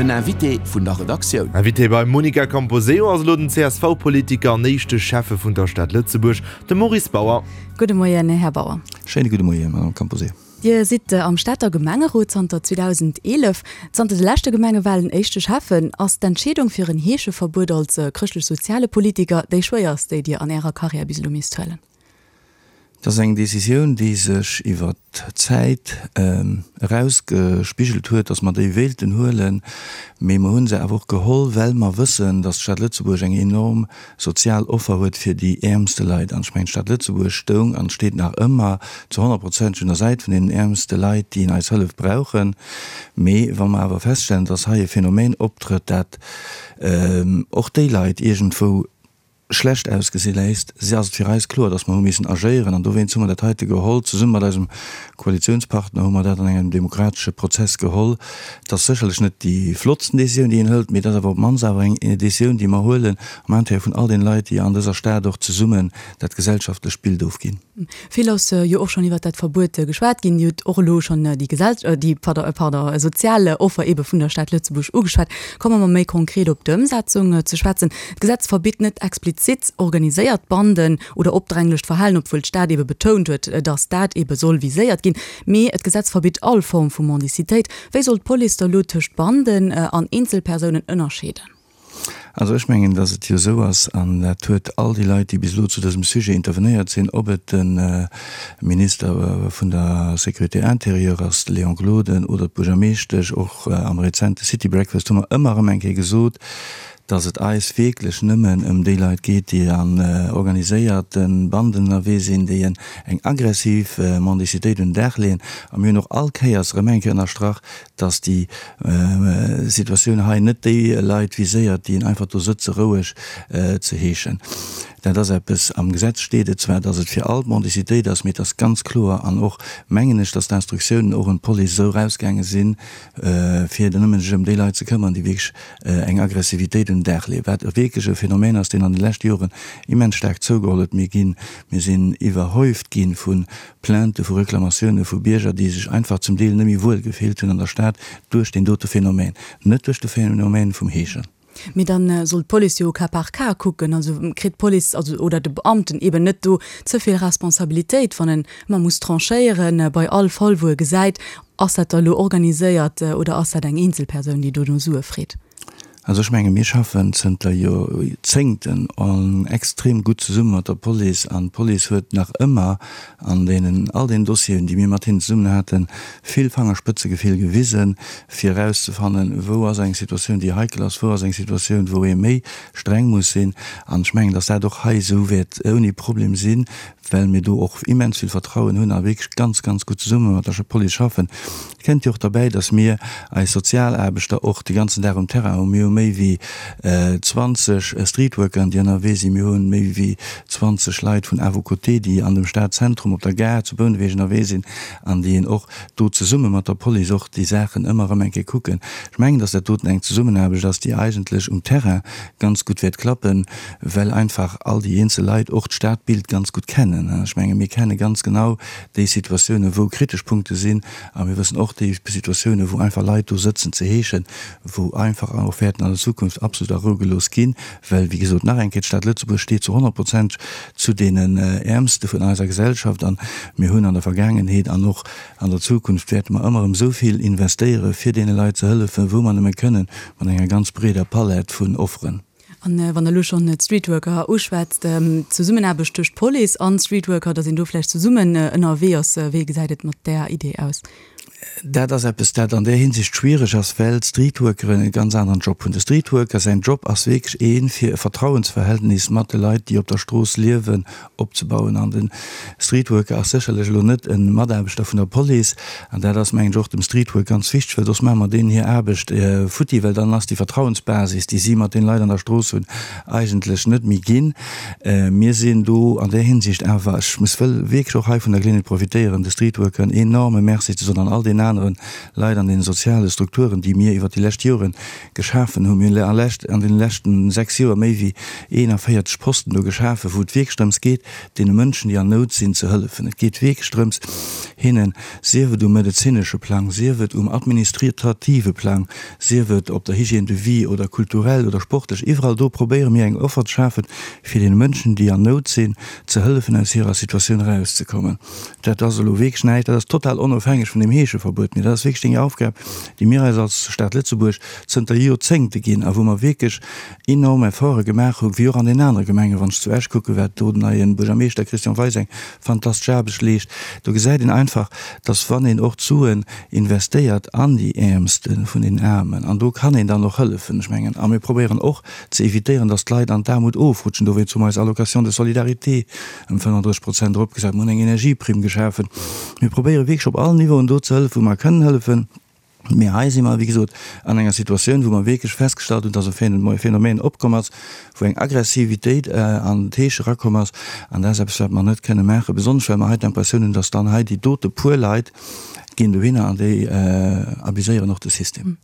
Den Invité vun der Redaktioun. Invité beim Monica Camposeo ass elo den CSV-Politiker an éischte Schäffe vun der Stad Lëtzebuerg, de Maurice Bauer. Gudde Moien, Här Bauer. Schéine gudde Moien, Madame Camposeo. Dir sidd am Stater Gemengerot zanter 2011. Zanter de leschte Gemengewalen éischte Schäffen. Ass d'Entscheedung fir en Heescheverbuet als chrëschtlech-soziale Politiker déi schwéierst, déi Dir an Ärer Karriär bis elo misst huelen? Et ass eng Decisioun, déi sech iwwer d'Zäit erausgespigelt huet, datt mer déi wéilten huelen. Mee mer hu se awer och geholl, well mer wëssen, datt d'Stad Lëtzebuerg eng enorm sozial Offer huet fir déi äermste Leit. An ech mengen, d'Stad Lëtzebuerg stoung an steet nach ëmmer zu honnertprozenteg un der Säit vun deenen äermste Leit, déi eis Hëllef brauchen. Mee wa mer awer feststellen, datt hei e Phänomen optrëtt, dat och déi Leit iergendwou schlecht ausgesi léisst, si ass et fir eis kloer, dass mer hu missen agéieren an dowéinst hu mer dat heite geholl. Zesumme mat eisem Koalitionspartner hu mer dat an engem demokratesche Prozess geholl. Et ass sécherlech net déi flottsten Décisioun, déi een hëlt, mee et ass awer op d'mannst awer eng Décisioun, déi mer huelen am Intérêt vun all deene Leit, déi an dëser Stad och zesummen dat gesellschaftlecht Bild ofginn. Vill ass jo och schonn iwwert dat Verbuet geschwat ginn. Dir hutt och elo schonn déi Gesell-, déi, pardon, pardon, sozial Offer eebe vun der Stad Lëtzebuerg ugeschwat. Komme mer méi konkret op d'Ëmsetzung ze schwätzen. D'Gesetz verbitt net explizit organiséiert Banden oder opdränglecht Verhalen, obwuel d'Stad eebe betount huet, datt dat eebe soll viséiert ginn. Mee d'Gesetz verbitt all Form vu Mendicitéit. Wéi soll d'Police da lo tëscht Banden an Eenzelpersounen ënnerscheeden? Also ech mengen, datt et jo esou ass, an dat huet all déi Leit, déi bis elo zu dësem Sujet intervenéiert sinn, ob et de Minister vun der Sécurité intérieure ass, de Léon Gloden, oder d'Buergermeeschtesch, och am rezente City Breakfast hu mer ëmmer erëm eng Kéier gesot, datt et eis wierklech nëmmen ëm déi Leit geet, déi an organiséierte Banden ënnerwee sinn, déi eng aggressiv Mendicitéit un den Dag leeën. A mir hunn och all Kéiers erëm eng Kéier ënnerstrach, dass déi Situatioun hei net déi Leit viséiert, déi einfach do sëtze roueg ze heeschen. Dat ass eppes, am Gesetz steet et zwar, dass et fir all d'Mendicitéit ass, mee et ass ganz kloer an och mengen ech, dass d'Instruktiounen och un d'Police esou erausgaange sinn, fir nëmmen sech ëm déi Leit ze këmmern, déi wierklech eng Aggressivitéit un den Dag leeën, wat wierklech e Phänomen ass, deen an de leschte Joren immens staark zougeholl huet. Mir ginn, mir sinn iwwerhäuft gi vu Plaintë vu Reklamatioune vu Bierger, déi sech einfach zum Deel net méi wuel gefillt hunn an der Stad duerch deen dote Phänomen, net duerch de Phänomen vum Heeschen. Mee dann soll d'Police jo au cas par cas kucken. Also kritt d'Police, also oder de Beamten eben net do ze vill Responsabilitéit, wann en ëmmer muss tranchéieren bei all Fall wou e gesäit, ass dat da elo organiséiert oder ass dat eng Eenzelpersoun, déi do no Sue freet? Also ech menge mir schaffen zënter Joerzéngten extrem gutt zesumme mat der Police an d'Police huet nach ëmmer an deenen all deenen Dossieren, déi mir mat hinnen zesummen haten, vill Fangerspëtzegefill gewisen, fir erauszefannen, wou ass eng Situatioun, déi heikel ass, wou ass eng Situatioun, wou ee méi streng muss sinn. An ech mengen, datt dat och hei esou wäert ouni Problem sinn, well mir do och immens vill Vertrauen hunn a wierklech ganz, ganz gutt zesumme mat der Police schaffen. Et kënnt jo och derbäi, dass mir eis Sozialaarbechter och de ganzen Dag um Terrain hunn. Mir hu méi wéi 20 Streetworkeren, déi ënnerwee sinn. Mir hu méi wéi 20 Leit vun À vos côtés, déi an dem Stadzentrum, op der Gare zu Bouneweg ënnerwee sinn an déi och do zesumme mat der Police och déi Saachen ëmmer erëm eng Kéier kucken. Ech mengen, dass dat doten eng Zesummenaarbecht ass, déi eigentlech um Terrain ganz gutt wäert klappen, well einfach all déi eenzel Leit och d'Stadbild ganz gutt kennen. Ech menge mir kenne ganz genau déi Situatiounen, wou kritesch Punkte sinn a mir wëssen och déi Situatiounen, wou einfach Leit do sëtzen ze heeschen, wou einfach och wäerten an der Zukunft absolut a Rou gelooss ginn, well, wéi gesot, nach eng Kéier, d'Stad Lëtzebuerg steet zu 100 Prozent zu deenen Äermste vun eiser Gesellschaft an mir hunn an der Vergaangenheet an och an der Zukunft wäerte mer ëmmer erëm esou vill investéiere fir deene Leit ze hëllefen, wou mer nëmme kënnen, mat enger ganz breeder Palett vun Offeren. An wann Der elo schonn d'Streetworker uschwätzt, d'Zesummenaarbecht tëscht Police an Streetworker, datt een do vläicht zesummen ënnerwee ass, wéi gesäit et mat där Idee aus? Dat ass eppes, dat an där Hinsicht schwiereg ass, well d'Streetworkeren e ganz aneren Job hunn. De Streetworker säin Job ass wierklech een, fir e Vertrauensverhältnis mat de Leit, déi op der Strooss liewen, opzebauen. An de Streetworker ass sécherlech elo net e Mataarbechter vun der Police. An dat ass, mengen ech, och dem Streetwork ganz wichteg, well soss maache mer deenen hir Aarbecht futti, well dann ass déi Vertrauensbasis, déi si mat den Leit an der Strooss hunn, eigentlech net méi ginn. Mir sinn do an där Hinsicht awer, ech muss wëll wierklech och hei vun der Geleeënheet profitéieren, de Streetworkeren enorme Merci ze soen an all deenen aneren. anere Leit an deene soziale Strukturen, déi mir iwwert déi lescht Jore geschafen hunn. Mir hunn an deene leschten 6 Joer méi wéi 41 Posten do geschafen, wou et wierklech drëms geet, deene Mënschen, déi an Nout sinn, ze hëllefen. Et geet wierklech drëms, hinnen, sief et um medezinesche Plang, sief et um administrative Plang, sief et op der Hygiène de vie oder kulturell oder sportlech, iwwerall do probéiere mir eng Offer ze schafen, fir deene Mënschen, déi an Nout sinn, ze hëllefen, aus hirer Situatioun erauszekommen. Dat ass elo wierklech näischt, dat ass total onofhängeg vun deem Heescheverbuet, mee dat ass wierklech déi Aufgab, déi mir eis als Stad Lëtzebuerg zënter Joerzéngte ginn a wou mer wierklech enorm Efforte gemaach hunn, wéi och an den anere Gemengen. Wann ech zu Esch kucken, wat do den neie Buergermeeschter Christian Weis eng fantastesch Aarbecht leescht, do gesäit een einfach, dass wann een och d'Suen investéiert an déi Äermste vun den Aarmen, an do kann een dann och hëllefen, ech mengen, a mir probéieren och ze evitéieren, dass d'Leit an d'Aarmut ofrutschen, dowéinst hu mer eis Allocation de solidarité ëm 35 Prozent eropgesat, mir hunn eng Energieprimm geschafen. Mir probéiere wierklech op allen Niveauen do ze hëllefen, wou mer kënnen hëllefen. Mee hei si mer, wéi gesot, an enger Situatioun, wou mer wierklech festgestallt hunn, dass e Phänomen opkomm ass, wou eng Aggressivitéit an d'Heesch erakomm ass. An dat ass eppes, wat mer net kënne maachen, besonnesch well mer hei d'Impressioun hunn, dass dann hei déi dote puer Leit ginn dohinner an déi abuséieren och de System.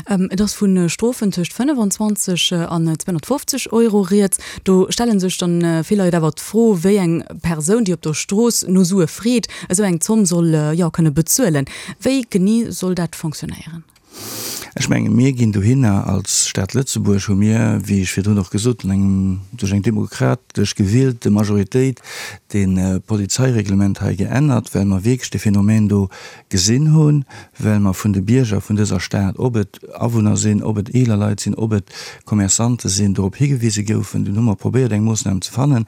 Et ass vu Strofen tëscht 25 an 250 Euro rieds. Do stelle sech dann vill Leit awer d'Fro, wéi eng Persoun, déi op der Strooss no Sue freet, esou eng Zomm soll, jo, kënne bezuelen. Wéi genee soll dat fonctionnéieren? Ech menge mir ginn dohinner, als Stad Lëtzebuerg hu mir, wéi ech virdrun och gesot hunn, engem duerch eng demokratesch gewielte Majoritéit dee Polizeireglement hei geännert, well mer wierklech dee Phänomen do gesinn hunn, well mer vun de Bierger vun dëser Stad, ob et Awunner sinn, ob et eeler Leit sinn, ob et Commerçante sinn, dorop higewise goufen. Dunn hu mer probéiert eng Moossnam ze fannen,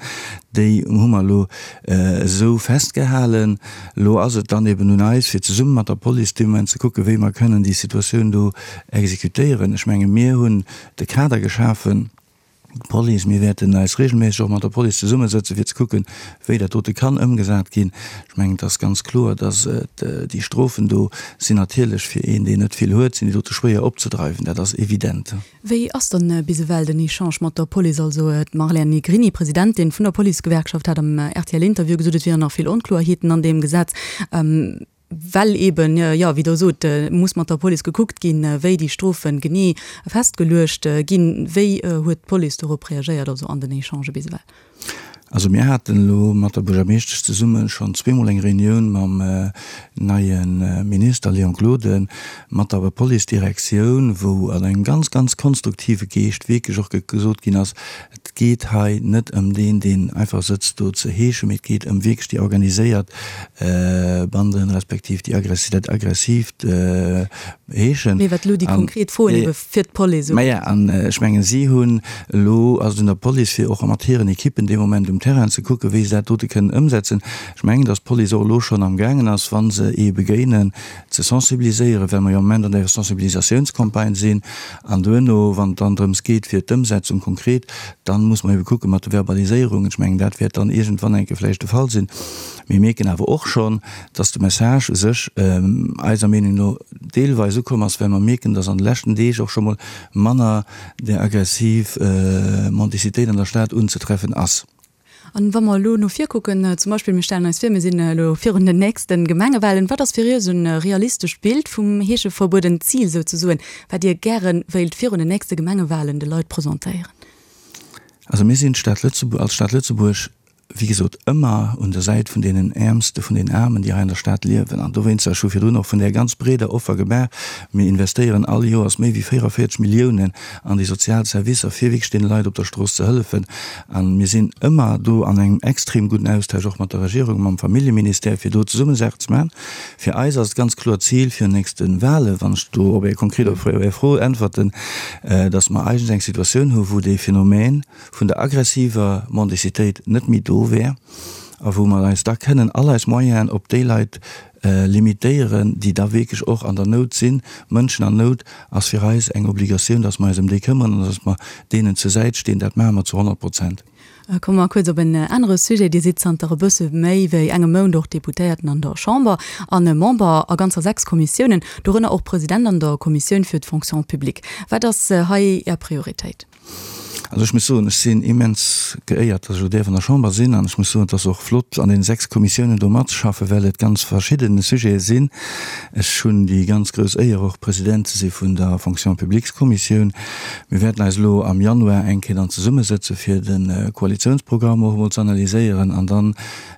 déi hu mer elo esou festgehalen. Elo ass et dann eben un eis, fir zesumme mat der Police dee Moment ze kucken, wéi mer kënnen déi Situatioun do exekutéieren. Ech menge mir hunn de Kader geschafen. D'Police, mir wäerten eis regelméisseg och mat der Police zesummesëtzen, fir ze kucken, wéi dat dote kann ëmgesat ginn. Ech mengen, et ass ganz kloer, dass et déi Strofen do sinn natierlech fir een, deen net vill huet, sinn déi dote schwéier opzedreiwen. Dat ass evident. Wéi ass dann bis ewell den Echange mat der Police? Also d'Marlène Negrini, Presidentin vun der Policegewerkschaft, hat am RTL-Interview gesot, et wieren nach vill Onkloerheeten an deem Gesetz. Well eeben, jo, wéi Der sot, muss mat der Police gekuckt ginn, wéi déi Strofe genee festgeluecht ginn. Wéi huet d'Police dorop reagéiert, also an den Echangë bis ewell? Also mir haten elo mat der Buergermeeschtesch zesumme schonn zweemol eng Reunioun mam neie Minister Léon Gloden, mat der Policedirektioun, wou an engem ganz, ganz konstruktive Geescht wierklech och gesot ginn ass, Et geet hei net ëm deen, deen einfach sëtzt do ze heeschen, mee et geet ëm wierklech déi organiséiert Banden, respektiv déi aggressiv, dat aggressiivt Heeschen. Mee wat elo déi konkret Froen ebe fir d'Police ugeet. Maja, an ech mengen, si hunn elo, ass et un der Police, fir och mat hiren Ekippen dee Moment um Terrain ze kucken, wéi se dat dote kënnen ëmsetzen. Ech mengen, datt d'Police och elo schonn amgaangen ass, wa se ee begéinen, ze sensibiliséieren, well mer jo am Moment an der Sensibilisatiounscampagne sinn. An duerno, wann et dann drëms geet fir d'Ëmsetzung konkret, dann muss mer ebe kucke mat de Verbaliséierungen. Ech mengen, dat wäert dann iergendwann eng Kéier vläicht de Fall sinn. Mir mierken awer och schonn, dass de Message u sech eiser Meenung no deelweis ukomm ass, well mer mierken, dass an de leschten Deeg och scho mol manner där aggressiv Mendicitéit an der Stad unzetreffen ass. An wa mer elo no vir kucken, zum Beispill mir stellen eis vir, mir sinn elo virun den nächste Gemengewahlen, wat ass fir Iech e realistescht Bild vum Heescheverbuet, en Zil souzesoen, wat Dir gäre wéilt virun den nächste Gemengewahlen de Leit presentéieren? Also mir sinn d'Stad Lëtzebuerg, als Stad Lëtzebuerg, wéi gesot, ëmmer un der Säit vun deenen Äermste vun den Aarmen, déi hei an der Stad liewen. An dowéinster, ech hu virdrun och vun där ganz breeder Offer gemaach, mir investéieren all Joers méi wéi 44 Milliounen an déi sozial Servicer, fir wierklech deene Leit op der Strooss ze hëllefen. A mir sinn ëmmer do an engem extrem gudden Austausch och mat der Regierung, mam Familljeministère, fir do zesumme Saachen ze maachen. Fir eis ass et ganz kloer d'Zil fir nächste Wahlen, wann ech do op Är konkret op Är Fro äntwerten, datt mer eigentlech eng Situatioun hu wou dee Phänomen vun der aggressiver Mendicitéit net méi do wär a wou mer eis da kënnen all eis Moyenen op déi Leit limitéieren, déi da wierklech och an der Nout sinn. Mënschen an Nout ass fir eis eng Obligatioun, dass mer eis ëm déi këmmeren an dass mer deenen zur Säit stinn. Dat maache mer zu 100 Prozent. Komme mer kuerz op en anere Sujet. Dir sidd zanter e bësse méi wéi engem Mount och Deputéierten an der Chamber an Member a ganzer 6 Kommissiounen, dorënner och President an der Kommissioun fir d'Fonction publique. Wat ass hei Är Prioritéit? Also ech muss soen, ech sinn immens geéiert, datt ech elo däerf an der Chamber sinn an ech muss soen, et ass och flott an deene 6 Kommissiounen do matzeschaffen, well et ganz verschidden Sujete sinn. Ech hunn déi ganz grouss Éier och President ze si vun der Fonction publiques-Kommissioun. Mir wäerten eis elo am Januar eng Kéier dann zesummesëtze fir de Koalitiounsprogramm och emol ze analyséieren an dann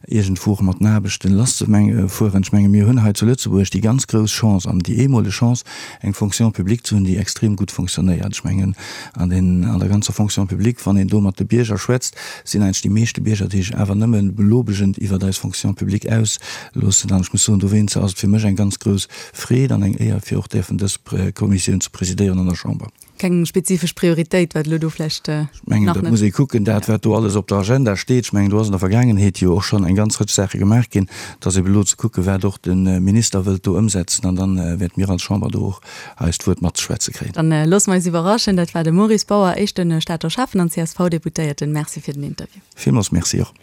iergendwou och mat den Aarbechten lasszefueren. Ech menge mir hunn hei zu Lëtzebuerg déi ganz grouss Chance an déi eemoleg Chance, eng Fonction publique ze hunn, déi extrem gutt fonctionnéiert. Ech mengen an den, an der ganzer Fonction publique, wann een do mat de Bierger schwätzt, sinn eigentlech déi meeschte Bierger, déi sech awer nëmme belobegend iwwert eis Fonction publique ausloossen. An ech muss soen, dowéinst ass et fir mech eng ganz grouss Freed an eng Éier, fir och däerfen dës Kommissioun ze presidéieren an der Chamber. Keng spezifesch Prioritéit, wat elo do vläicht nach net. Ech mengen, dat muss ee kucken, dat wat do alles op der Agenda steet. Ech mengen, do ass an der Vergaangenheet jo och schonn eng ganz Rëtsch Saache gemaach ginn. Et ass ebe elo ze kucken, wat och de Minister wëllt do ëmsetzen, an da wäerte mir als Chamber do och eist Wuert matzeschwätze kréien. Dann loosse mer eis iwwerraschen. Dat war de Maurice Bauer, éischte Stater Schäffen an CSV-Deputéierten. Merci fir den Interview. Villmools Merci och.